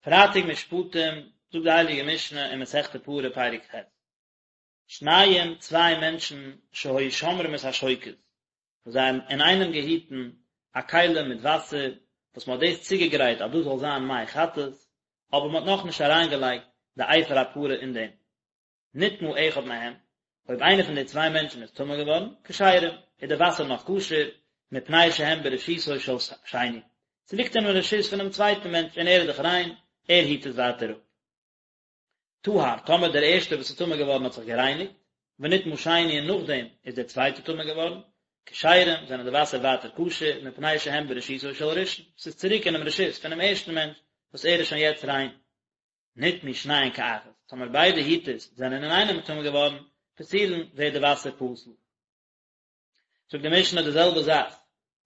פרייטאג משפטים, זאגט די הייליגע משנה אין מסכת פרה פרק ח', שניים צוויי מענטשן שהיו שומרים את השוקת, וואס זיי האבן אינאיינעם געהיטן א כלי מיט וואסער, וואס מען האט דאס צוגעגרייט אז דאס זאל זיין מי חטאת, אבער מען האט נאכנישט אריינגעלייגט די אפר הפרה אין דעם. נטמא אחד מהם, אויב איינער פון די צוויי מענטשן איז טמא געווארן, כשרים, איז די וואסער נאך כשר, מפני שהם ברשותו של שני, ס'ליגט אינעם רשות פונעם צווייטן מענטש און ער איז דאך ריין, ער היט עס ווייטער אפ. טהר, טאמער דער ערשטער וואס איז טמא געווארן האט זיך גערייניגט, ונטמא שני און נאכדעם איז דער צווייטער טמא געווארן, כשרים, זענען די וואסער ווייטער כשר, מפני שהם ברשותו של ראשון, ס'איז צוריק אינעם רשות פונעם ערשטן מענטש, וואס ער איז שוין יעצט ריין. נטמאו שניהן כאחת, טאמער ביידע היטערס זענען אינאיינעם טמא געווארן, פסולין, ווערט די וואסער פסול. זאגט די משנה די זעלבע זאך,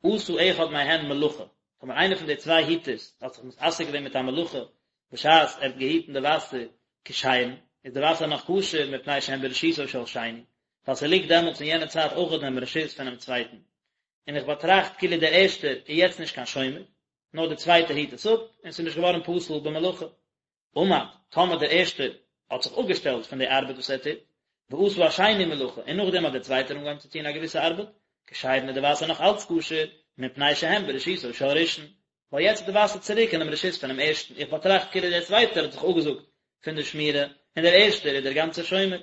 עשה אחד מהן מלאכה, טאמער איינער פון די צוויי היטערס האט זיך מתעסק געווען מיט א מלאכה בשעת ער האט געהיטן די וואסער כשרים, איז די וואסער נאך כשר מפני שהן ברשותו של שני, ווייל ס'ליגט דעמאלטס אין יענע צייט אויך אינעם רשות פונעם צווייטן. און איך באטראכט כאילו דער ערשטער איז יעצט נישט קיין שומר, נאר דער צווייטער היט עס אפ, און ס'איז נישט געווארן פסול במלאכה. עמד, טאמער דער ערשטער האט זיך אפגעשטעלט פון די ארבעט וואס ער טוט, ועשה השני מלאכה, און נאכדעם האט דער צווייטער אנגעהויבן צו טון א געוויסע ארבעט, כשרין איז די וואסער נאך אלץ כשר, מפני שהן ברשותו של ראשון, ווייל יעצט איז די וואסער צוריק אינעם רשות פונעם ערשטן, איך באטראכט כאילו דער צווייטער האט זיך אפגעזאגט פון די שמירה, און דער ערשטער איז דער גאנצער שומר.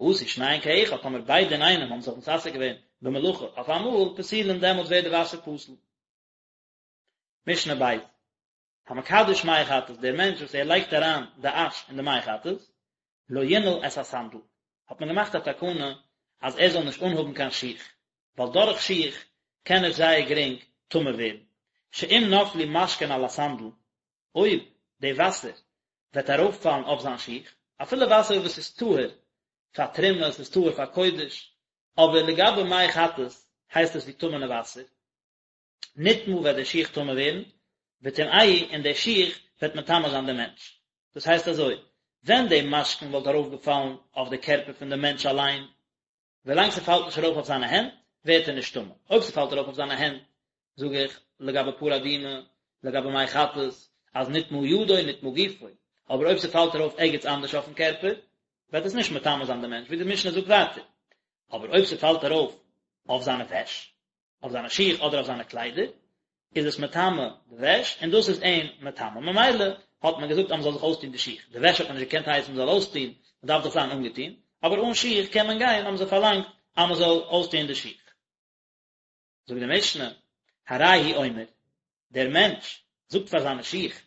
עשו שניהן כאחד, טאמער ביידע אינאיינעם האבן זיך מתעסק געווען במלאכה אויף אמאל, פסולין דעמאלטס ווערט די וואסער פסול. משנה ב', המקדש מי חטאת, דער מענטש וואס ער לייגט אריין די אש אין די מי חטאת, לא ינעל את הסנדל, האט מען געמאכט א תקנה אז ער זאל נישט אנהאבן קיין שיך, ווייל דורך שיך קען ער זייער גרינג טמא ווערן, שאם נפלו משקין על הסנדל, אויב די וואסער וועט ארויפפאלן אויף זיין שיך, אפילו וואסער וואס איז טהור פאר תרומה, עס איז טהור פאר קודש, אבער לגבי מי חטאת הייסט עס ווי טמא'נע וואסער, נטמא וועט דער שיך טמא ווערן, וטמאהו און דער שיך וועט מטמא זיין דעם מענטש. דאס הייסט אזוי, ווען די משקין וואלט ארויפגעפאלן אויף די קערפער פון דעם מענטש אליין, ווילאנג ס'פאלט נישט ארויף אויף זיינע הענט, ווערט ער נישט טמא. אויב ס'פאלט ארויף אויף זיינע הענט, זאג איך, לגבי פרה אדומה, לגבי מי חטאת, אז נטמא ידו נטמא גופו. אבער אויב ס'פאלט ארויף ערגעץ אנדערש אויפן קערפער, וועט עס נישט מטמא זיין דעם מענטש, ווי די משנה זאגט ווייטער. אבער אויב ס'פאלט ארויף אויף זיינע וועש, אויף זיינע שיך אדער אויף זיינע קליידער, איז עס מטמא די וועש, און דאס איז אים מטמא. ממילא האט מען געזאגט אז מען זאל זיך אויסטון די שיך. די וועש האט מען נישט געקענט הייסן מען זאל אויסטון, מען דארף דאך זיין אנגעטון, אבער אן שיך קען מען גיין, האבן זיי פארלאנגט אז מען זאל אויסטון די שיך. זאגט די משנה, הרי הוא אומר, דער מענטש זאגט פאר זיינע שיך,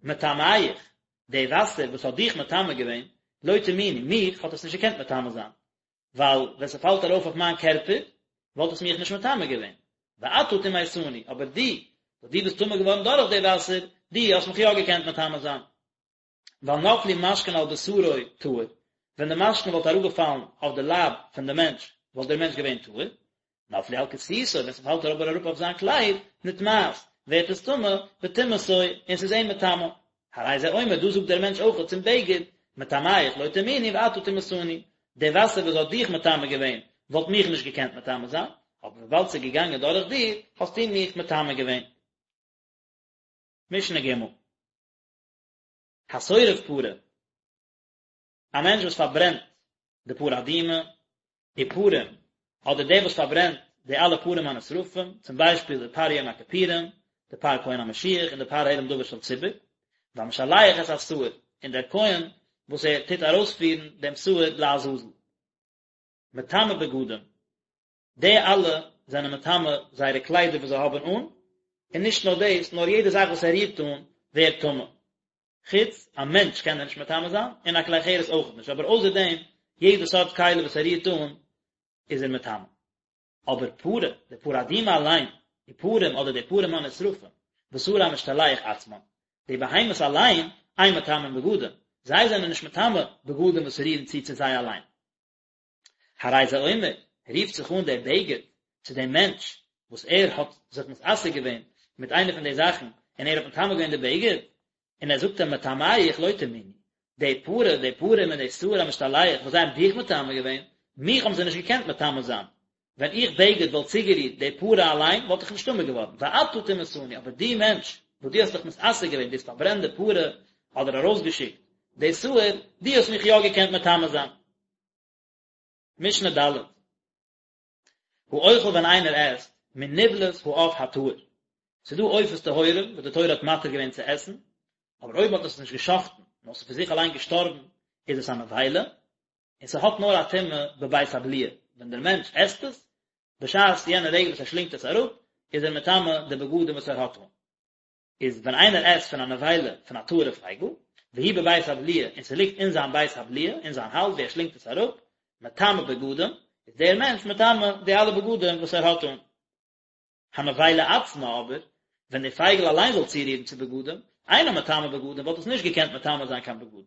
מטמאיך, די וואסער וואס האט דיך מטמא געווען, לא טמאוני, מיך האט עס נישט געקענט מטמא זיין, ווייל ווען ס'פאלט ארויף אויף מיין קערפער, וואלט עס מיך נישט מטמא געווען. ואתה טמאתני, אבער דו, וואס דו ביסט טמא געווארן דורך די וואסער, דו האסט מיך יא געקענט מטמא זיין. ווייל נפלו משקין על בשרו טהור, ווען די משקין וואלט אראפגעפאלן אויף די לייב פון די מענטש, וואלט דער מענטש געווען טהור. נפלו על כסותו, ווען ס'פאלט אבער אראפ אויף זיין קלייד, נטמאת, ווערט עס טמא, וטמאתו, און ס'איז אים מטמא. הרי זה אומר, דא זאגט דער מענטש אויך צום בגד, מטמאיך לא טמאוני ואתה טמאתני, די וואסער וואס האט דיך מטמא געווען, וואלט מיך נישט געקענט מטמא זיין, אבער וויבאלד ס'איז געגאנגען דורך דיר, האסטו מיך מטמא געווען. משנה ג'. השורף פרה. א מענטש וואס פארברענט די פרה אדומה, ופרים, אדער דער וואס פארברענט די אלע פרים הנשרפים, צום ביישפיל די פר יום הכיפורים, די פר כהן המשיח און די פר העלם דבר של ציבור, והמשלח את השעיר, און דער כהן וואס ער טוט ארויספירן דעם שעיר לעזאזל. מטמא בגדים, די אלע זענען מטמא זייערע קליידער וואס זיי האבן אן, און נישט נאר דאס, נאר יעדע זאך וואס ער רירט אן ווערט טמא. חוץ א מענטש קען ער נישט מטמא זיין, און א כלי חרס אויך נישט, אבער אויסער דעם, יעדע סארט כלי וואס ער רירט אן, איז ער מטמא. אבער פרה, די פרה אדומה אליין, ופרים אדער די פרים הנשרפים, ושעיר המשתלח עצמן, די בהמות אליין, אין מטמאין בגדים, זיי זענען נישט מטמא בגדים וואס רירן צו צו זיי אליין. הרי זה אומר, רופט זיך אן דער בגד צו דעם מענטש וואס ער האט זיך מתעסק געווען מיט איינע פון די זאכן און ער האט מטמא געווען די בגד, און ער זאגט אים מטמאיך לא טמאוני, די פרה, די פרים און די שעיר המשתלח וואס זיי האבן דיך מטמא געווען, מיך האבן זיי נישט געקענט מטמא זיין, ווען איך בגד וואלט צוגערירט די פרה אליין וואלט איך נישט טמא געווארן, ואתה טמאתני, אבער דו מענטש וואס דו האסט דיך מתעסק געווען, דו האסט פארברענט די פרה, אדער ארויסגעשיקט די שעיר, דו האסט מיך יא געקענט מטמא זיין. משנה ד'. האוכל ווען איינער עסט מנבלת העוף הטהור, ס'איז דא עופות טהורים וואס די תורה האט מתיר געווען צו עסן, אבער אויב מ'האט עס נישט גע'שחט'ן נאר ס'איז פון זיך אליין געשטארבן איז עס א נבילה, און ס'האט נאר א טומאה בבית הבליעה, ווען דער מענטש עסט עס, בשעת יענע רגע וואס ער שלינגט עס אראפ, איז ער מטמא די בגדים וואס ער האט אן. איז ווען איינער עסט פון א נבילה פון א טהור'ע פייגל, והיא בבית הבליעה, און ס'ליגט אין זיין בית הבליעה, אין זיין האלז ווי ער שלינגט עס אראפ, מטמא בגדים, איז דער מענטש מטמא די אלע בגדים וואס ער האט אן. הנבילה עצמה אבער, ווען די פייגל אליין זאל צורירן צו בגדים, אינה מטמא בגדים וואלט עס נישט געקענט מטמא זיין קיין בגדים.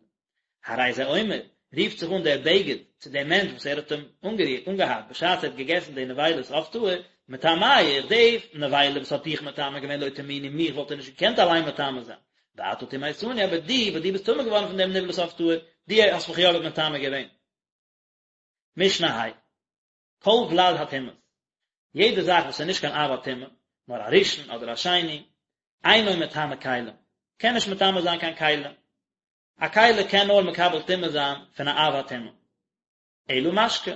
הרי זה אומר, רופט זיך אן דער בגד צו דעם מענטש וואס ער האט אים אנגערירט, אנגעהאט, בשעת ער האט געגעסן די נבילת עוף טהור, מטמאיך, די נבילה וואס האט דיך מטמא געווען לא טמאוני, מיך וואלט ער נישט געקענט אליין מטמא זיין, ואתה טמאתני, אבער דו, וואס דו ביסט טמא געווארן פון דעם נבלת עוף טהור, דו האסט מיך יא מטמא געווען. משנה ה'. כל ולד הטומאות, יעדע זאך וואס איז נישט קיין אב הטומאה, נאר א ראשון אדער א שני, אינו מטמא כלים, קען נישט מטמא זיין קיין כלים. א כלי קען נאר מקבל טומאה זיין פון א אב הטומאה. אלא משקה,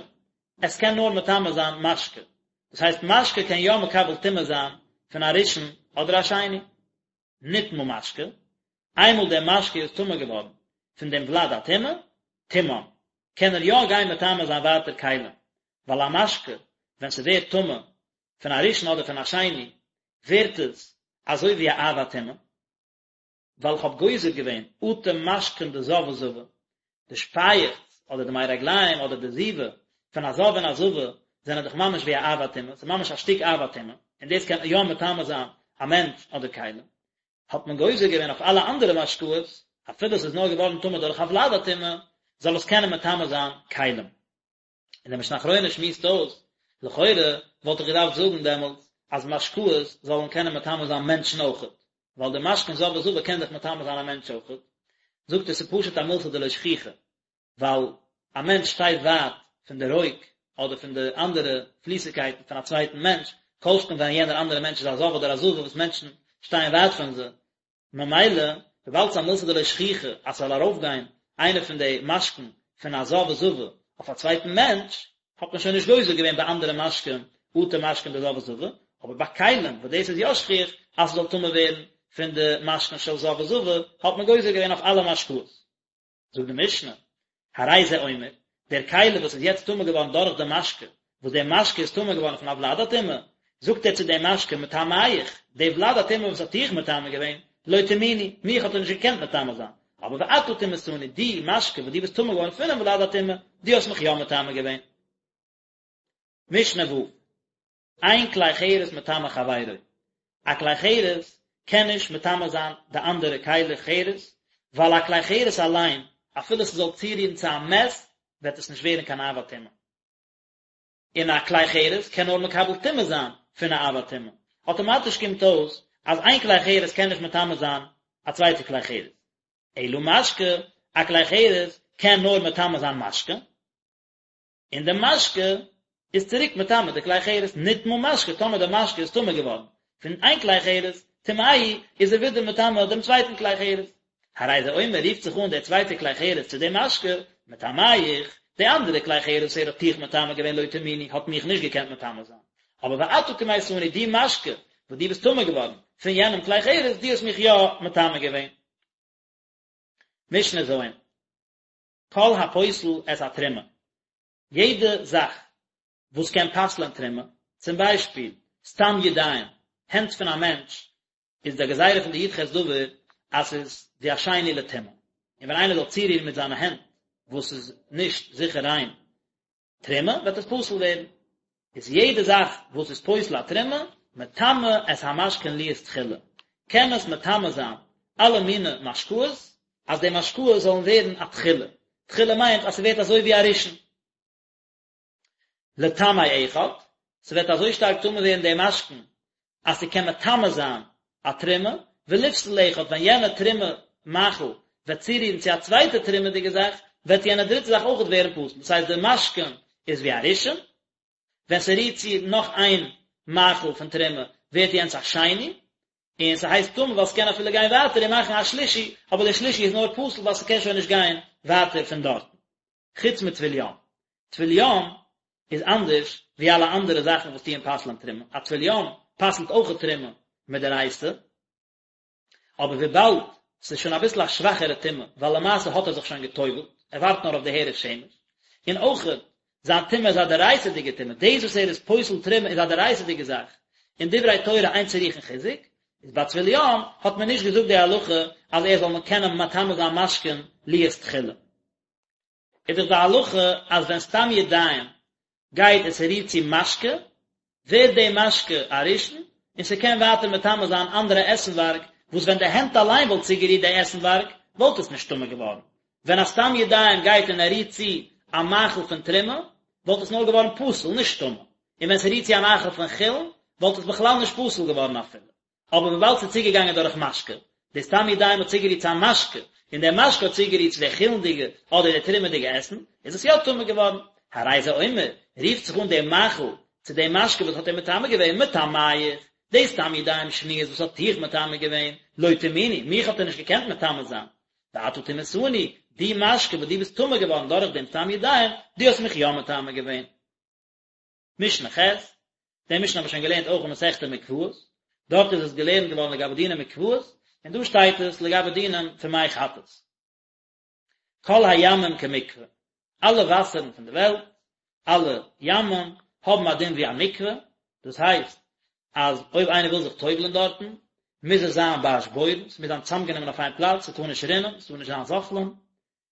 עס קען נאר מטמא זיין משקה. דאס הייסט משקה קען יא מקבל טומאה זיין פון א ראשון אדער א שני. נטמא משקה, איינמאל דער משקה איז טמא געווארן פון דעם ולד הטומאה, טמאן, קען ער יא גיין מטמא זיין ווייטער כלים, ווייל א משקה ווען ס'ווערט טמא פון א ראשון אדער פון א שני, ווערט עס אזוי ווי א אב הטומאה. ווייל איך האב גוזר געווען אטו משקין דזב וזבה, די שפייעכץ אדער די מי רגליים אדער די זיבה פון א זב און א זבה זענען דאך ממש ווי א אב הטומאה, ס'איז ממש א שטיק אב הטומאה, און דאס קען יא מטמא זיין א מענטש אדער כלים, האט מען גוזר געווען אויף אלע אנדערע משקאות, אפילו ס'איז נאר געווארן טמא דורך א ולד הטומאה, זאל עס קענען מטמא זיין כלים. און דער משנה אחרונה שמועסט אויס, לכאורה וואלט איך געדארפט זאגן דעמאלטס אז משקאות זאלן קענען מטמא זיין מענטשן אויכעט, ווייל די משקין זב וזבה קען דאך מטמא זיין א מענטש אויכעט, זאגט ער ס'איז פשוט א מילתא דלא שכיחא, ווייל א מענטש שטייט ווייט פון די רוק אדער פון די אנדערע פליסיגקייטן פון א צווייטן מענטש, כל שכן ווען יענער אנדערע מענטש איז א זב אדער א זבה וואס מענטשן שטייען ווייט פון זיי, ממילא, וויבאלד ס'איז א מילתא דלא שכיחא אז ס'זאל ארויפגיין איינע פון די משקין פון א זב וזבה אויף א צווייטן מענטש, האט מען שוין נישט גוזר געווען ביי אנדערע משקין אטו משקין דזב וזבה, אבער ביי כלים וואס דאס איז יא שכיח אז ס'זאל טמא ווערן פון די משקין של זב וזבה, האט מען גוזר געווען אויף אלע משקאות. זאגט די משנה, הרי זה אומר, דער כלי וואס איז יעצט טמא געווארן דורך די משקה, וואס דער משקה איז טמא געווארן פון א ולד הטומאה, זאגט ער צו דעם משקה מטמאיך, די ולד הטומאה וואס האט דיך מטמא געווען, לא טמאוני, מיך האט ער נישט געקענט מטמא זיין, אבער ואתה טמאתני, דו משקה וואס דו ביסט טמא געווארן פונעם ולד הטומאה, דו האסט מיך יא מטמא געווען. משנה ו', אין כלי חרס מטמא חברו, א כלי חרס קען נישט מטמא זיין די אנדערע כלי חרס, ווייל א כלי חרס אליין, אפילו ס'זאל צורירן צו א מת, וועט עס נישט ווערן קיין אב הטומאה. און א כלי חרס קען נאר מקבל טומאה זיין פון א אב הטומאה. אטאמאטיש קומט אויס אז איין כלי חרס קען נישט מטמא זיין א צווייטע כלי חרס. אלא משקה, א כלי חרס קען נאר מטמא זיין משקה. און די משקה איז צוריק מטמא די כלי חרס, נטמא משקה, טאמער די משקה איז טמא געווארן פון איין כלי חרס, טמאהו, איז ער ווידער מטמא דעם צווייטן כלי חרס. הרי זה אומר, רופט זיך אן דער צווייטער כלי חרס צו דעם משקה, מטמאיך, די אנדערע כלי חרס וואס ער האט דיך מטמא געווען לא טמאוני, האט מיך נישט געקענט מטמא זיין. אבער ואתה טמאתני, דו משקה, וואס דו ביסט טמא געווארן פון יענעם כלי חרס, דו האסט מיך יא מטמא געווען. משנה ז'. כל הפוסל את התרומה, יעדע זאך וואס קען פסל'ען תרומה, צום ביישפיל, סתם ידיים, הענט פון א מענטש, איז די גזירה פון די י"ח דבר אז ס'איז ווי א שני לטומאה, און ווען איינער זאל צורירן מיט זיינע הענט וואס איז נישט זיכער ריין תרומה, וועט עס פסול ווערן. איז יעדע זאך וואס איז פוסל א תרומה, מטמא את המשקין להיות תחילה, קען עס מטמא זיין אלע מיני משקאות, אז די משקאות זאלן ווערן א תחילה, תחילה מיינט אז ס'ווערט אזוי ווי א ראשון. לטמא אחד, ס'וועט אזוי שטארק טמא ווערן די משקין, אז ס'קען מטמא זיין א תרומה, ולפסול אחד, ווען יענע תרומה מאכל וועט צורירן צו א צווייטע תרומה'דיגע זאך, וועט יענע דריטע זאך אויכעט ווערן פסול, דאס הייסט די משקין איז ווי א ראשון, ווען ס'רירט צו נאך איין מאכל פון תרומה ווערט יענץ א שני, און ס'הייסט טמא ווייל ס'קען אפילו גיין ווייטער און מאכן א שלישי, אבער דער שלישי איז נאר פסול ווייל ס'קען שוין נישט גיין ווייטער פון דארטן. חוץ מטבול יום. טבול יום איז אנדערש ווי אלע אנדערע זאכן וואס טוען פסל'ען תרומה. א טבול יום פסל'ט אויכעט תרומה מדאורייתא, אבער וויבאלד ס'איז שוין אביסל א שוואכערע טומאה, ווייל למעשה האט ער זיך שוין גע'טובל'ט, ער ווארט נאר אויף די הערב שמש, און אויכעט זיין טומאה איז א דאורייתא'דיגע טומאה, דאס וואס ער איז פוסל תרומה איז א דאורייתא'דיגע זאך, און דברי תורה אין צריכין חיזוק, איז ביי טבול יום האט מען נישט געזאגט די הלכה אז ער זאל קענען מטמא זיין משקין להיות תחילה. איז דאך די הלכה אז ווען סתם ידיים גייט און ס'רירט צו משקה, ווערט די משקה א ראשון, און ס'קען ווייטער מטמא זיין אנדערע עסנווארג, וואס ווען די הענט אליין וואלט צוגערירט די עסנווארג, וואלט עס נישט טמא געווארן. ווען א סתם ידיים גייט און ער רירט צו א מאכל פון תרומה, וואלט עס נאר געווארן פסול, נישט טמא. און ווען ס'רירט צו א מאכל פון חולין, וואלט עס בכלל נישט פסול געווארן אפילו. אבער וויבאלד ס'איז צוגעגאנגען דורך משקה, די סתם ידיים האט צוגערירט צו א משקה, און דער משקה האט צוגערירט צו די חולין'דיגע אדער די תרומה'דיגע עסן, איז עס יא טמא געווארן. הרי זה אומר, רופט זיך אן דער מאכל צו דעם משקה וואס האט אים מטמא געווען, מטמאיך, די סתם ידיים שניות וואס האט דיך מטמא געווען, לא טמאוני, מיך האט ער נישט געקענט מטמא זיין. ואתה טמאתני, דו משקה וואס דו ביסט טמא געווארן דורך דעם סתם ידיים, דו האסט מיך יא מטמא געווען. משנה ח', די משנה האבן מיר שוין געלערנט אויך אין מסכת מקוואות, דארט איז עס געלערנט געווארן לגבי דיני מקוואות, און דא שטייט עס לגבי דינים פון מי חטאת. כל הימים כמקווה, אלע וואסערן פון די וועלט, אלע ימים, האבן א דין ווי א מקווה, דאס הייסט אז אויב איינער וויל זיך טובל'ען דארטן, מוז עס זיין באשבורן, ס'מוז זיין צוזאמגענומען אויף איין פלאץ, ס'טאר נישט רינען, ס'טאר נישט זיין זוחלין,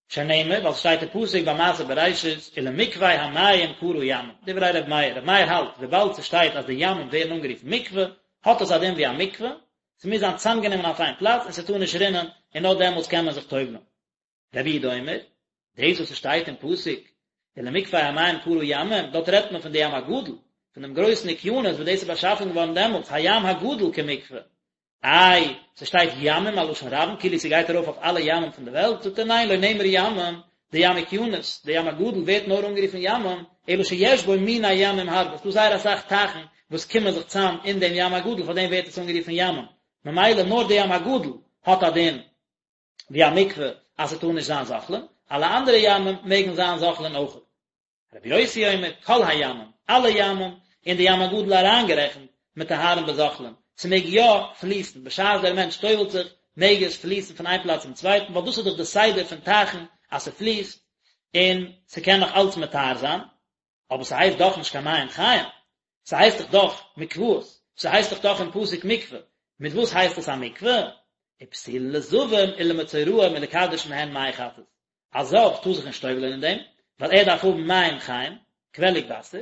שנאמר, ווייל ס'שטייט אין פסוק ביי מעשה בראשית, ולמקווה המים קרא ימים, דברי ר' מאיר, ר' מאיר האלט, וויבאלד ס'שטייט אז די ימים ווערן אנגערופן מקווה, האט עס א דין ווי א מקווה, ס'מוז זיין צוזאמגענומען אויף איין פלאץ און ס'טאר נישט רינען, און נאר דעמאלטס קען מען זיך טובל'ן. רבי יהודה אומר, דאס וואס ס'שטייט אין פסוק, ולמקווה המים קרא ימים, דארט רעדט מען פון די ים הגדול, פון דעם גרויסן אוקיינוס וואס דאס איז באשאפן געווארן דעמאלטס, הים הגדול כמקווה, איי, ס'שטייט ימים א לשון רבים כאילו ס'גייט ארויף אויף אלע ימים פון די וועלט, זאגט ער ניין לא נאמר ימים, די ים אוקיינוס, די ים הגדול ווערט נאר אנגערופן ימים, אלא שיש בו מיני ימים הרבה, ס'דא זייער אסאך טייכן וואס קומען זיך צאם אין דעם ים הגדול פאר דעם ווערט עס אנגערופן ימים, ממילא נאר די ים הגדול האט א דין ווי א מקווה אז ס'טאר נישט זיין זוחלין, אלע אנדערע ימים מעגן זיין זוחלין אויכעט. רבי יוסי אומר, כל הימים, אלע ימים, און די ים הגדול אריינגערעכנט, מטהרין בזוחלין, ס'מעג יא פליסן, בשעת דער מענטש טובל'ט זיך, מעג עס פליסן פון איין פלאץ צום צווייטן, ווייל דאס איז דאך די סדר פון טייכן, אז ס'פליסט, און ס'קען נאך אלץ מטהר זיין, אבער ס'הייסט דאך נישט קיין מים חיים, ס'הייסט דאך דאך מקוואות, ס'הייסט דאך דאך אין פסוק מקווה, מיט וואס הייסט עס א מקווה? ופסולין לזבים ולמצורעים ולקדש מהן מי חטאת, א זב טאר זיך נישט טובל'ען אין דעם, ווייל ער דארף האבן מים חיים, קוועליג וואסער,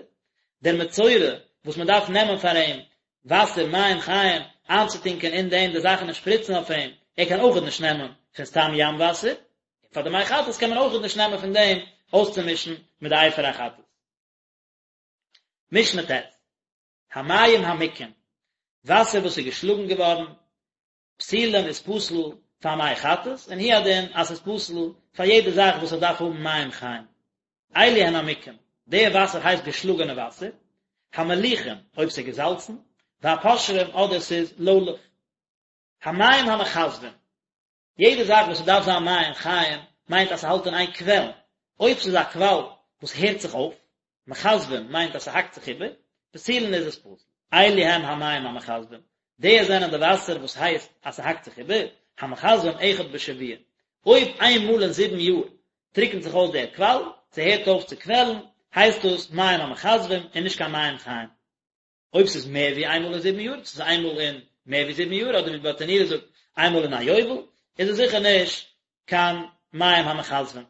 דער מצורע וואס מען דארף נעמען פאר אים וואסער מים חיים איינצוטונקען אין דעם די זאכן און שפריצן אויף אים, ער קען אויכעט נישט נעמען פון סתם ים וואסער, און פאר די מי חטאת קען מען אויכעט נישט נעמען פון דעם אויסצומישן מיט די אפר החטאת. משנה ט', המים המוכים, וואסער וואס איז געשלאגן געווארן, פסולים איז פסול פאר מי חטאת, און הוא הדין אז ס'איז פסול פאר יעדע זאך וואס עס דארף האבן מים חיים. אלו הן המוכים, די וואסער הייסט געשלאגענע וואסער, המליחים, אויב ס'איז געזאלצן, והפושרים אדער ס'איז לוילעך. המים המכזבים, יעדע זאך וואס ס'דארף זיין מים חיים מיינט אז ס'האלט אין איין קוועלן, אויב ס'איז א קוואל וואס הערט זיך אויף, מכזבים מיינט אז ס'האקט זיך איבער, פסולין איז עס פסול. אלו הם המים המכזבים, די זענען די וואסער וואס הייסט אז ס'האקט זיך איבער, המכזבים אחד בשבוע, אויב איין מאל אין זיבן יאר טריקנט זיך אויס דער קוואל, ס'הערט אויף צו קוועלן, הייסט דאס מים המכזבים און נישט קיין מים חיים. אויב ס'איז מער ווי איינמאל אין זיבן יאר, ס'איז איינמאל אין מער ווי זיבן יאר, אדער ווי ברטנורא זאגט איינמאל אין א יובל, איז עס זיכער נישט קיין מים המכזבים.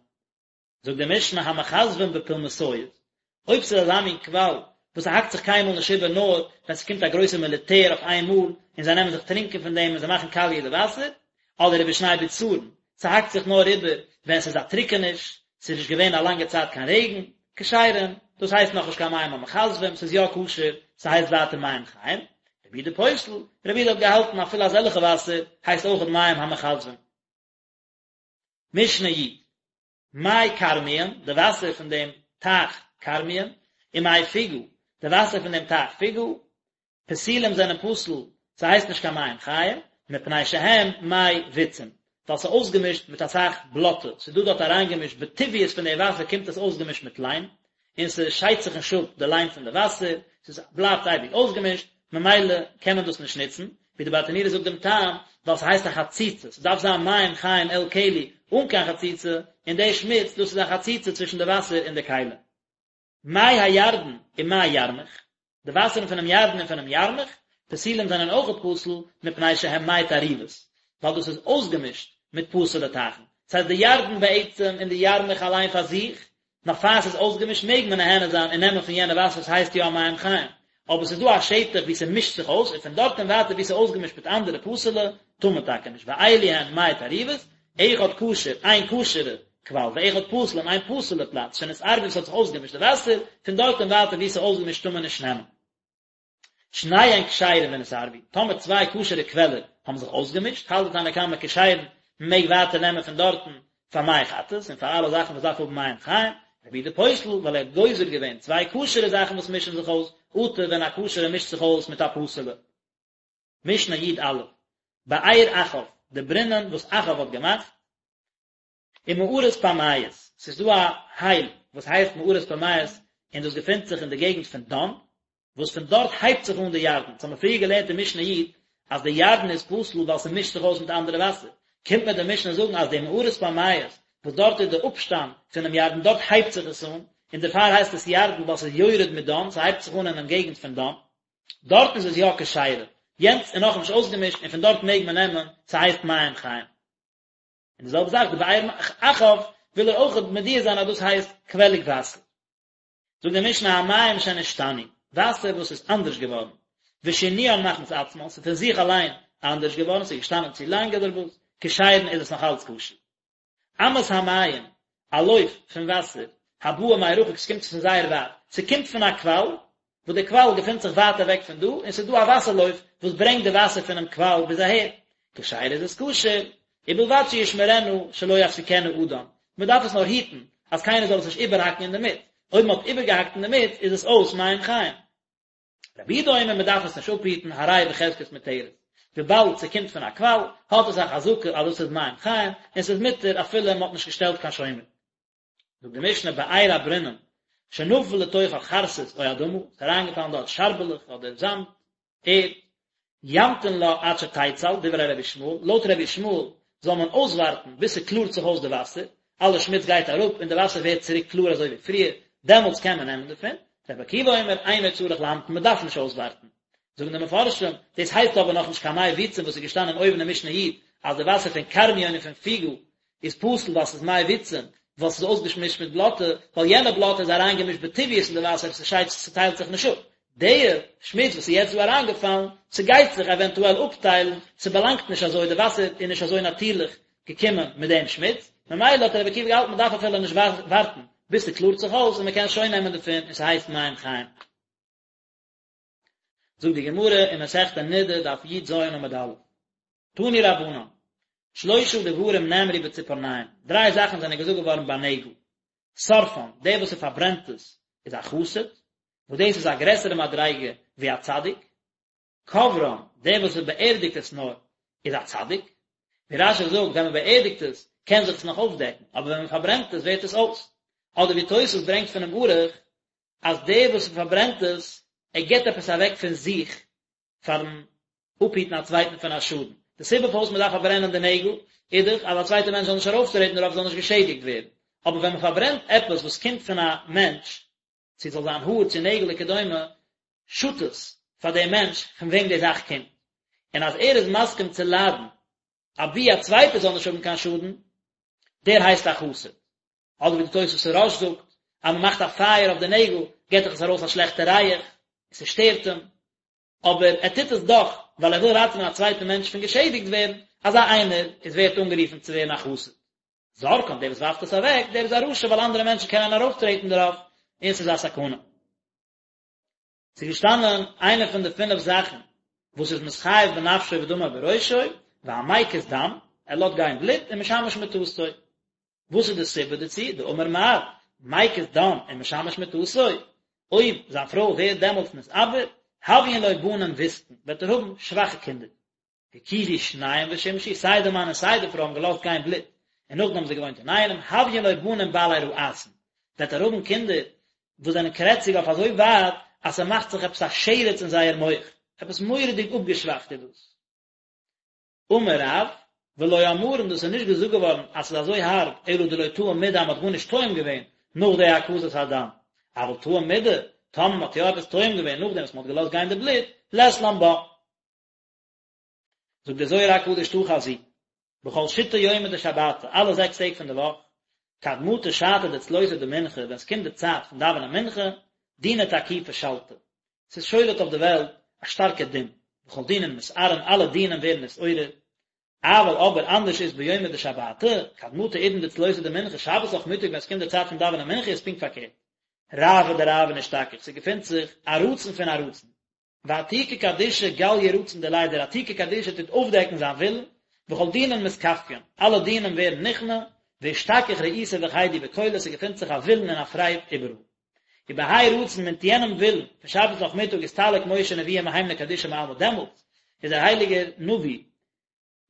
זאגט די משנה המכזבים בפולמסיות, אויב ס'איז אזא מין קוואל וואס ס'האקט זיך קיינמאל נישט איבער נאר ווען ס'קומט א גרויסע מיליטער אויף איין מאל און זיי נעמען זיך טרינקען פון דעם און זיי מאכן קאליע די וואסער, אדער ובשני בצרון, ס'האקט זיך נאר איבער ווען ס'איז א טריקעניש, ס'איז נישט געווען א לאנגע צייט קיין רעגן, כשרים, דאס הייסט נאכנישט קיין מים המכזבים, ס'איז יא כשר, ס'הייסט ווייטער מים חיים, רבי יהודה פוסל, רבי יהודה האט געהאלטן אפילו אזעלכע וואסער הייסט אויכעט מים המכזבים. משנה י. מי כרמיון, די וואסער פון דעם טייך כרמיון, ומי פוגה, די וואסער פון דעם טייך פוגה, פסולים זענען פסול, ס'הייסט נישט קיין מים חיים, מפני שהם מי ביצים, ווייל ס'איז אויסגעמישט מיט אסאך בלאטע, ס'איז דא דארט אריינגעמישט בטבעיות פון די וואסער קומט עס אויסגעמישט מיט ליים, און ס'שיידט זיך נישט אפ די ליים פון די וואסער, ס'איז בלייבט אייביג אויסגעמישט, ממילא קען מען דאס נישט נוצן, ווי די ברטנורא זאגט דעם טעם, ווייל ס'הייסט א חציצה, ס'דארף זיין מים חיים אל כלי אן קיין חציצה, און די שמוץ דאס איז א חציצה צווישן די וואסער און די כלי. מי הירדן ומי ירמוך, די וואסערן פונעם ירדן און פונעם ירמוך, פסולים זענען אויכעט פסול, מפני שהם מי תערובות, ווייל דאס איז אויסגעמישט מיט פסול'ע טייכן. ס'הייסט די ירדן בעצם און די ירמוך אליין פאר זיך, נאך פאר ס'איז אויסגעמישט מעג מען נהנה זיין און נעמען פון יענע וואסער ס'הייסט יא מים חיים, אבער ס'איז דא א שטח וואו ס'מישט זיך אויס און פון דארט און ווייטער וואו ס'איז אויסגעמישט מיט אנדערע פסול'ע, טאר מען טאקע נישט, ואלו הן מי תערובות, אחד כשר, איין כשר'ע קוואל, ואחד פסול און איין פסול'ע פלאץ, שנתערבו וואס האט זיך אויסגעמישט די וואסער, פון דארט און ווייטער וואו ס'איז אויסגעמישט טאר מען נישט נעמען. שניהן כשרים ונתערבו, טאמער צוויי כשר'ע קוועלער האבן זיך אויסגעמישט, האלט די תנא קמא כשרים, מען מעג ווייטער נעמען פון דארטן פאר מי חטאת און פאר אלע זאכן וואס דארף האבן מים חיים, רבי יהודה פוסל, ווייל ער האט גוזר געווען צוויי כשר'ע זאכן וואס מישן זיך אויס, אטו ווען א כשר'ע מישט זיך אויס מיט א פסול'ע. משנה י"א, באר אחאב, די ברינען וואס אחאב האט געמאכט, ומערת פמייס, ס'איז דא א הייל וואס הייסט מערת פמייס און דאס געפינט זיך אין די געגנט פון דן, וואס פון דארט הייבט זיך אן די ירדן, ס'האמיר פריער געלערנט אין משנה י' אז די ירדן איז פסול ווייל ס'מישט זיך אויס מיט אנדערע וואסער, קומט מיר די משנה זאגן אז די מערת פמייס וואס דארט איז די אפשטאם פונעם ירדן דארט הייבט זיך עס אן, און דערפאר הייסט עס ירדן ווייל ס'איז יורד מדן, ס'הייבט זיך אן אינעם געגנט פון דן. דארט איז עס יא כשרה, יענץ איז נאכנישט אויסגעמישט און פון דארט מעג מען נעמען, ס'הייסט מים חיים. און די זעלבע זאך די באר אחאב וויל ער אויך מודיע זיין אז דאס הייסט קוועליג וואסער. זאגט די משנה המים שנשתנו, וואסער וואס איז אנדערש געווארן, ושינוין מחמת עצמן, ס'איז פון זיך אליין אנדערש געווארן, ס'איז געשטאנען צו לאנג אדער וואס, כשרין איז עס נאך אלץ כשר. אמת המים, א לויף פון וואסער, הבאה מרחוק, ס'קומט פון זייער ווייט, ס'קומט פון א קוואל, וואס די קוואל געפינט זיך ווייט אוועק פון דא, און ס'איז דא א וואסער לויף וואס ברענגט די וואסער פונעם קוואל ביז אהער, כשרה איז עס כשר, ובלבד שישמרנה שלא יפסיקנה אדם, מ'דארף עס נאר היטן אז קיינער זאל עס נישט איבערהאקן אינדערמיט, אויב מ'האט איבערגעהאקט אינדערמיט איז עס אויס מים חיים. רבי יהודה אומר מען דארף עס נישט אפהיטן הרי בחזקת מותרת, וויבאלד ס'קומט פון א קוואל האט עס א חזקה אז דאס איז מים חיים און ס'איז מותר אפילו מען האט נישט געשטעלט קיין שומר. זאגט די משנה באר א ברינען שנפל לתוכה חרסית או אדמה, ס'איז אריינגעפאלן דארט שארבעלעך אדער זאמד, ערד, ימתין לה עד שתיצל, דברי רבי ישמעאל, לויט רבי ישמעאל זאל מען אויסווארטן ביז ס'קלארט זיך אויס די וואסער, אלע שמוץ גייט אראפ און די וואסער ווערט צוריק קלאר אזוי ווי פריער, דעמאלטס קען מען נעמען דערפון, רבי עקיבא אומר אינו צריך להמתין מען דארף נישט אויסווארטן. זאגן די מפרשים, דאס הייסט אבער נאכנישט קיין מי ביצים וואס איז געשטאנען אויבן אין משנה י' אז די וואסער פון כרמיון און פון פיגא איז פסול ווייל ס'איז מי ביצים, ווייל ס'איז אויסגעמישט מיט בלאטע, ווייל יענע בלאטע איז אריינגעמישט בטבעיות אין די וואסער, ס'שיידט ס'טיילט זיך נישט אפ. די שמוץ וואס איז יעצט דא אריינגעפאלן, ס'גייט זיך עווענטועל אפטיילן, ס'באלאנגט נישט אזוי, די וואסער איז נישט אזוי נאטירליך געקומען מיט דעם שמוץ, ממילא האט רבי עקיבא געהאלטן מ'דארף אפילו נישט ווארטן ביז ס'קלארט זיך אויס און מ'קען שוין נעמען דערפון און ס'הייסט מים חיים. זאגט די גמרא אין מסכת נדה דף י"ז עמוד א', תנו רבנן, שלושה דברים נאמרו בציפורניים, דריי זאכן זענען געזאגט געווארן ביי נעגל, שורפן, דער וואס ער פארברענט עס איז א חסיד, וואס דאס איז א גרעסערע מדריגה ווי א צדיק, קוברן, דער וואס ער באערדיגט עס נאר איז א צדיק, ווי רש"י זאגט, ווען מען באערדיגט עס קען זיך עס נאך אויפדעקן, אבער ווען מען פארברענט עס ווערט עס אויס, אדער ווי תוס' ברענגט פונעם ערוך, אז דער וואס פארברענט עס, ער גיבט עפעס אוועק פון זיך פארן אפהיטן א צווייטן פון א שאדן. די סיבה פארוואס מען דארף פארברענען די נעגל, איז דאך אז א צווייטער מענטש זאל נישט ארויפטרעטן דערויף זאל נישט געשעדיגט ווערן. אבער ווען מען פארברענט עפעס וואס קומט פון א מענטש, צו ס'זאל זיין האר צו נעגל וכדומה, שאדט עס פאר דעם מענטש פון וועם די זאך קומט. און אז ער איז מסכים צו ליידן אבי א צווייטער זאל נישט האבן קיין שאדן, דער הייסט א חסיד. אדער ווי די תוספות הרא"ש זאגט, אז מען מאכט א פייער אויף די נעגל, געט דאך עס ארויס א שלעכטע ריח, און ס'שטערט אים, אבער ער טוט עס דאך ווייל ער וויל ראטעווען א צווייטן מענטש פון געשעדיגט ווערן, אזא איינער איז ווערט אנגערופן צו ווערן א חסיד. זורקן, דער וואס ווארפט עס אוועק, דער איז א רשע ווייל אנדערע מענטשן קענען ארויפטרעטן דערויף, און ס'איז א סכנה. ס'איז געשטאנען איינע פון די פינף זאכן וואס איז מתחייב בנפשו ודמו בראשו, והמקיז דם, ער לאזט גיין בלוט, ומשמש מטתו. וואס איז די סיבה דערצו? דאמר מר, מקיז דם ומשמש מטתו, אויב זיין פרוי ווערט דעמאלטס נתעבר, הויין לו בנים ויתקין, וועט ער האבן שוואכע קינדער. הקיזו שניהם ושמשו, סיי די מאן און סיי די פרוי האבן געלאזט גיין בלוט, און נאכדעם האבן זיי געוואוינט אינאיינעם, הויין לו בנים בעלי רעתון, וועט ער האבן קינדער וואס זענען קרעציג אויף אזוי ווייט אז ס'מאכט זיך עפעס א שרץ אין זייער מח, עפעס מורא'דיג אפגעשוואכט איז דאס. אמר רב, ולא אמרן דאס איז נישט געזאגט געווארן אז ס'איז אזוי הארב אלא דלא טעים מידי אז מ'האט גארנישט טועם געווען נאך די הקזת הדם, אבל טעים מידי, טאמער מ'האט יא עפעס טועם געווען נאכדעם וואס מ'האט געלאזט גיין די בלוט, לית לן בה. זאגט דער זוהר הקדוש תא חזי, בכל שיתא יומי דשבתא, אלע זעקס טעג פון די וואך, כד מטא שעתא דצלותא דמנחה, ווען ס'קומט די צייט פון דאווענען מנחה, דינא תקיפא שלטא, ס'איז שולט אויף די וועלט א שטארקע דין, וכל דינין מתערין, אלע דינים ווערן נתעורר, אבל אבער אנדערש איז ביומא דשבתא, כד מטא עידן דצלותא דמנחה, שבת נאכמיטאג ווען ס'קומט די צייט פון דאווענען מנחה איז פונקט פארקערט, רעוא דרעוין אשתכח, ס'געפינט זיך א רצון פון א רצון, ועתיקא קדישא גליא רצון דיליה דער עתיקא קדישא טוט אויפדעקן זיין ווילן, וכל דינין מתכפיין, אלע דינים ווערן נכנע, ואשתכח רעותא וחידו בכלא, ס'געפינט זיך א ווילן און א פרייד איבעראל. ובהאי רצון מיט יענעם ווילן פון שבת נאכמיטאג אסתלק משה נביאא מהימנא קדישא מעלמא דעמאלטס איז דער הייליגער נביא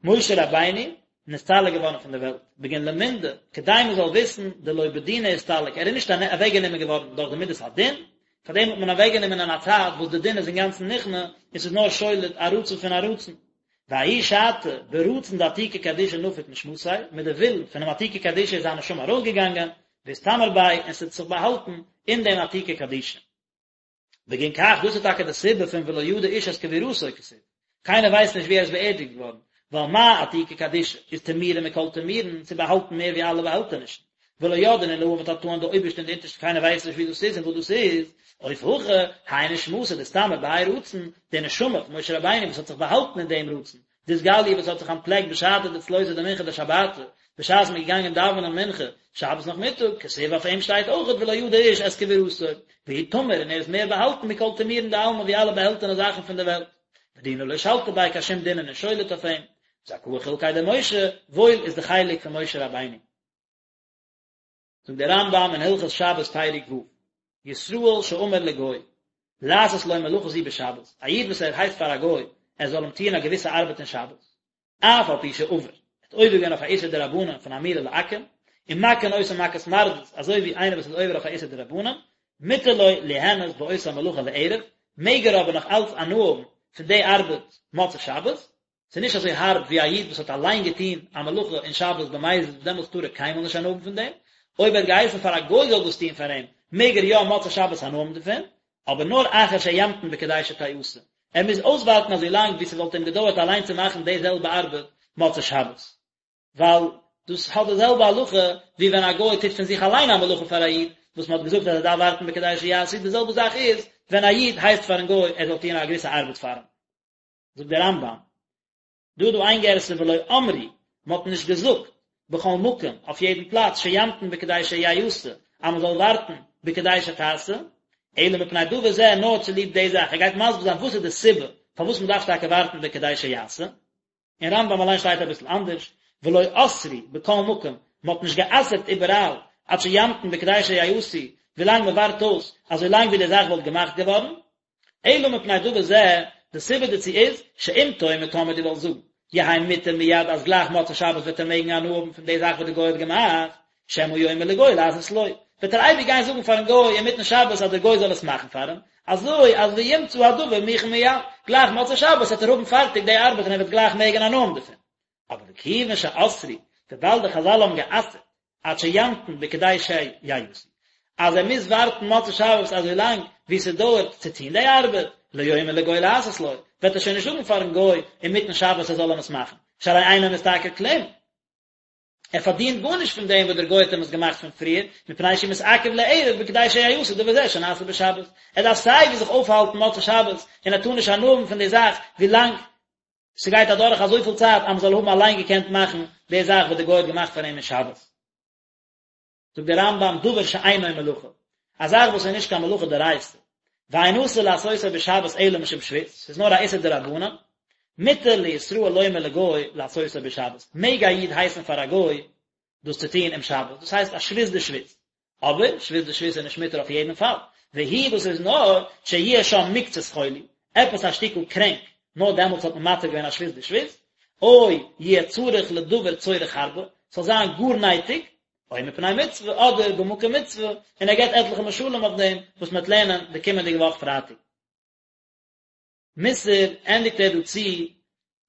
משה רבינו נסתלק געווארן פון דער וועלט, בגין למנדע, כדי מען זאל וויסן דלא בדינא אסתלק, ער איז נישט אוועקגענומען געווארן דורך די מידת הדין, פאר דעם האט מען אוועקגענומען אין א צייט וואס די דין איז אינגאנצן נכנע, און ס'איז נאר שולט א רצון פון א רצון. וההיא שעתא, ברצון דעתיקא קדישא נפיק נשמתיה, מיט די ווילן פונעם עתיקא קדישא איז זיין נשמה ארויסגעגאנגען, ואתטמר ביה, און ס'האט זיך באהאלטן אין דעם עתיקא קדישא. בגין כך, דאס איז טאקע די סיבה פון ולא ידע איש את קבורתו כתיב, קיינער ווייסט נישט ווי ער איז באערדיגט געווארן, ווייל מה עתיקא קדישא איז טמירא מכל טמירין, ס'איז באהאלטן מער ווי אלע באהעלטענישן, ולא ידעין עילאין ותתאין די אויבערשטע און די אונטערשטע קיינער ווייסט נישט ווי דאס איז און וואס דאס איז, אוף הכא, האי נשמתא דאיסתמר בהאי רצון, די נשמה פון משה רבינו וואס האט זיך באהאלטן אין דעם רצון, דאתגליא וואס האט זיך אנטפלעקט בשעתא דצלותא דמנחה דשבתא, בשעת מ'איז געגאנגען דאווענען מנחה שבת נאכמיטאג, כתיב אויף אים שטייט אויכעט ולא ידע איש את קבורתו, והוא טמיר און ער איז מער באהאלטן מכל טמירין דעלמא ווי אלע באהעלטענע זאכן פון די וועלט. ודינא לא שלטא ביה קיין שום דין איז נישט שולט אויף אים. זכאה חולקיה דמשה, וואויל איז די חלק פון משה רבינו. זאגט דער רמב"ם אין הלכות שבת פרק ו', ישראל שאמר לגוי, לעשות לו מלאכה זו בשבת, א איד וואס ער הייסט פאר א גוי ער זאל אים טוען א געוויסע ארבעט אין שבת, אף על פי שעבר, ער האט עובר געווען אויף א איסור דרבנן פון אמירה לעכו"ם, ומכין אותו מכת מרדות, אזוי ווי איינער וואס איז עובר אויף א איסור דרבנן, מותר לו ליהנות באותה מלאכה לערב, מעג ער אבער נאך אלץ הנאה האבן פון די ארבעט מוצאי שבת, ס'איז נישט אזוי הארב ווי א איד וואס האט אליין געטון א מלאכה אין שבת במזיד וואס דעמאלטס טאר ער קיינמאל נישט הנאה האבן פון דעם, אויב ער האט געהייסן פאר א גוי זאל דאס טון פאר אים, מעג ער יא מוצאי שבת הנאה האבן דערפון, אבער נאר אחר שימתין בכדי שתיעשה, ער מוז אויסווארטן אזוי לאנג ווי ס'וואלט אים געדויערט אליין צו מאכן די זעלבע ארבעט מוצאי שבת, ווייל דאס האט די זעלבע הלכה ווי ווען א גוי טוט פון זיך אליין א מלאכה פאר א איד, וואס מ'האט געזאגט אז ער דארף ווארטן בכדי שיעשו, די זעלבע זאך איז ווען א איד הייסט פארן גוי ער זאל טון א געוויסע ארבעט פאר אים. זאגט דער רמב"ם, דא איז דא איין גירסא ולא אמרו, מען האט נישט געזאגט, בכל מקום, אויף יעדן פלאץ, שימתין בכדי שיעשה, אז מען זאל ווארטן בכדי שתעשה, אלא מפני דבר זה, נאר צוליב די זאך, ער גייט מסביר זיין וואס איז די סיבה פארוואס מען דארף טאקע ווארטן בכדי שיעשה, אין רמב"ם אליין שטייט אביסל אנדערש, ולא אסרו בכל מקום, מען האט נישט גע'אסר'ט איבעראל, עד שימתין בכדי שיעשו, ווילאנג מען ווארט אויס, אזוי לאנג ווי די זאך וואלט געמאכט געווארן, אלא מפני דבר זה, די סיבה דערצו איז, שאם תאמר טאמער דו וועלסט זאגן, יהא מותר מיד אז גלייך מוצאי שבת וועט ער מעגן הנאה האבן פון די זאך וואס די גוי האט געמאכט, שמא יאמר לגוי לעשות לו, וועט ער אייביג גיין זאגן פארן גוי אינמיטן שבת אז דער גוי זאל עס מאכן פאר אים, אזוי אז וימצא הדבר מוכן מיד, גלייך מוצאי שבת וועט ער האבן פארטיג די ארבעט און ער וועט גלייך מעגן הנאה האבן דערפון. אבער וכיוון שאסרו, וויבאלד די חז"ל האבן גע'אסר'ט עד שימתין בכדי שיעשו, אז ער מוז ווארטן מוצאי שבת אזוי לאנג ווי ס'דויערט צו טון די ארבעט, לא יאמר לגוי לעשות לו, וועט ער שוין נישט זאגן פארן גוי אינמיטן שבת ער זאל אים עס מאכן, שהרי אינו משתכר כלום. ער פארדינט גארנישט פון דעם וואס דער גוי האט אים עס געמאכט פון פריער, מפני שהוא מתעכב לערב בכדי שיעשה דבר זה שנעשה בשבת. ער דארף סיי ווי זיך אויפהאלטן מוצאי שבת, און ער טאר נישט הנאה האבן פון די זאך ווילאנג ס'גייט אדורך אזויפיל צייט אז מ'זאל האבן אליין געקענט מאכן די זאך וואס די גוי האט געמאכט פאר אים אין שבת. זאגט דער רמב"ם דבר שאינו מלאכה, א זאך וואס איז נישט קיין מלאכה דאורייתא, ואין אסור לעשותו בשבת אלא משום שבות, ס'איז נאר א איסור דרבנן, מותר לישראל לומר לגוי לעשותו בשבת, מעג א איד הייסן פאר א גוי דאס צו טון אום שבת, דאס הייסט א שבות דשבות, אבער שבות דשבות איז נישט מותר אויף יעדן פאל, והוא דאס איז נאר שיהיה שם מקצת חולי, עפעס א שטיקל קרענק. נאר דעמאלטס האט מען מתיר געווען א שבות בשבות, או יהיה צריך לדבר צורך הרבה, ס'זאל זיין גאר נייטיג, או מפני מצוה, אדער במקום מצוה, און ער געבט עטליכע משלים אויף דעם, וואס מ'וועט לערנען די קומענדיגע וואך פרייטאג. מוסר ענדיגט ער דא צו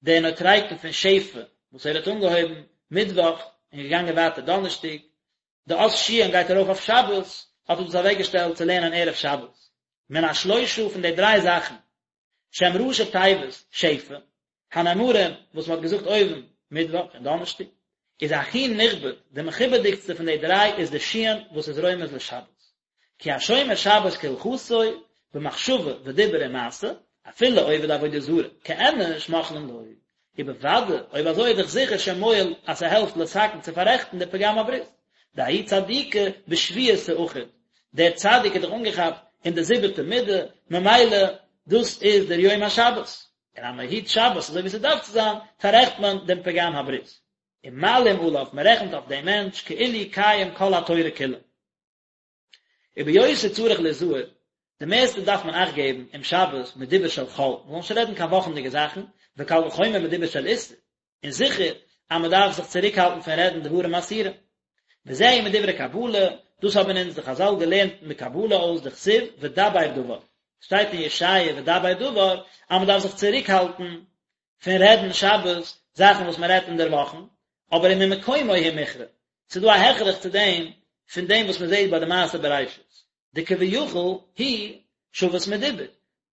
די נוטריקון פון שפע וואס ער האט אנגעהויבן מיטוואך און געגאנגען ווייטער דאנערשטאג, די אות שין גייט ארויף אויף שבת, האט ער דאס אוועקגעשטעלט צו לערנען ערב שבת. מן השלושה פון די דריי זאכן, שהם ראשי תיבות שפע, הנאמרים וואס מען האט געזאגט אויבן מיטוואך און דאנערשטאג, איז הכי נכבד, די מכובד'יגסטע פון די דריי איז די שין וואס איז רומז לשבת. כי השומר שבת כהלכתו, במחשבה ודיבור ומעשה, אפילו עובד עבודה זרה, כאנוש מוחלין לו. ובוודאי, אויב אזוי איז דאך זיכער שמועיל אז ס'העלפט לתקן צו פאררעכטן די פגם הברית. דההוא צדיקא בשביעתא אחיד, דער צדיק איז דאך אנגעכאפט אין די זיבעטע מידה, ממילא דאס איז דער יום השבת. און אז מ'היט שבת אזוי ווי ס'דארף צו זיין, פאררעכט מען דעם פגם הברית. ומעלים עליו, מ'רעכנט אויף דעם מענטש כאילו קיים כל התורה כולה. וביותר צריך ליזהר, די מערסטע דארף מען אכט געבן אום שבת מדיבור של חול, מען זאל נישט רעדן קיין וואכנדיגע זאכן, וקל וחומר מדיבור של איסור, און זיכער אז מען דארף זיך צוריקהאלטן פון רעדן דברים אסורים. וזהו מדברי קבלה, דאס האבן אונז די חזל געלערנט מקבלה אויס דכתיב ודבר דבר, שטייט אין ישעיה ודבר דבר אז מען דארף זיך צוריקהאלטן פון רעדן שבת זאכן וואס מען רעדט אינדערוואכן, אבער וממקומו הוא מוכרע, ס'איז דא א הכרח צו דעם פון דעם וואס מען זעט ביי די מעשה בראשית, דכביכול הוא שבת מדיבור,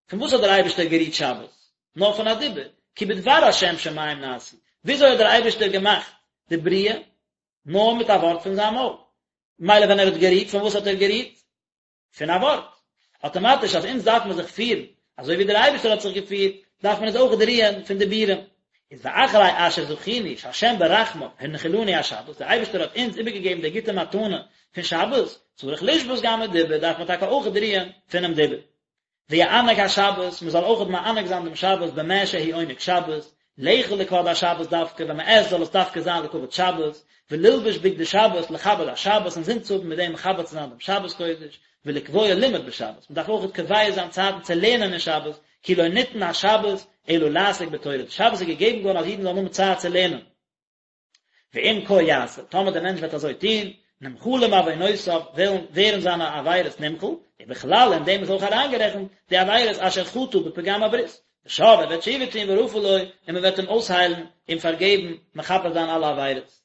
פון וואס האט דער אייבערשטער גערוהט שבת? נאר פון א דיבור, כי בדבר השם שמים נעשו, וויאזוי האט דער אייבערשטער געמאכט די בריאה? נאר מיט א ווארט פון זיין מויל, ממילא ווען ער האט גערוהט, פון וואס האט ער גערוהט? פון א ווארט. אטאמאטיש אז אונז דארף מען זיך פירן אזוי ווי דער אייבערשטער האט זיך געפירט, דארף מען אונז אויך רוען פון דיבורים. איז ואחרי אשר זכינו שהשם ברחמיו הנחילנו השבת, דער אייבערשטער האט אונז איבערגעגעבן די גוטע מתנה פון שבת, צריך לשבות גם מדיבור, דארף מען טאקע אויך רוען פונעם דיבור. ויענג השבת, מען זאל אויך מענג זיין דעם שבת במה שהוא עונג שבת, לאכול לכבוד השבת דווקא, ווען מען עסט זאל עס דווקא זיין לכבוד שבת, וללבוש בגדי שבת לכבד השבת, אינזין צו האבן מיט דעם מכבד צו זיין דעם שבת קודש, ולקבוע לימוד בשבת, מען דארף אויך קובע זיין צייטן צו לערנען אין שבת, כי לא ניתן השבת אלא לעסוק בתורה, די שבת איז געגעבן געווארן אז אידן זאלן האבן צייט צו לערנען. ואם כה יעשה, טאמער דער מענטש וועט אזוי טון, נמחלים עוונותיו, וועלן ווערן זיינע עבירות נמחל, ובכלל אין דעם איז אויך אריינגערעכנט די עבירות אשר חטא בפגם הברית, ושב ער וועט תשובה טון ורפא לו, און מען וועט אים אויסהיילן, אים פארגעבן, מכפר זיין אלע עבירות.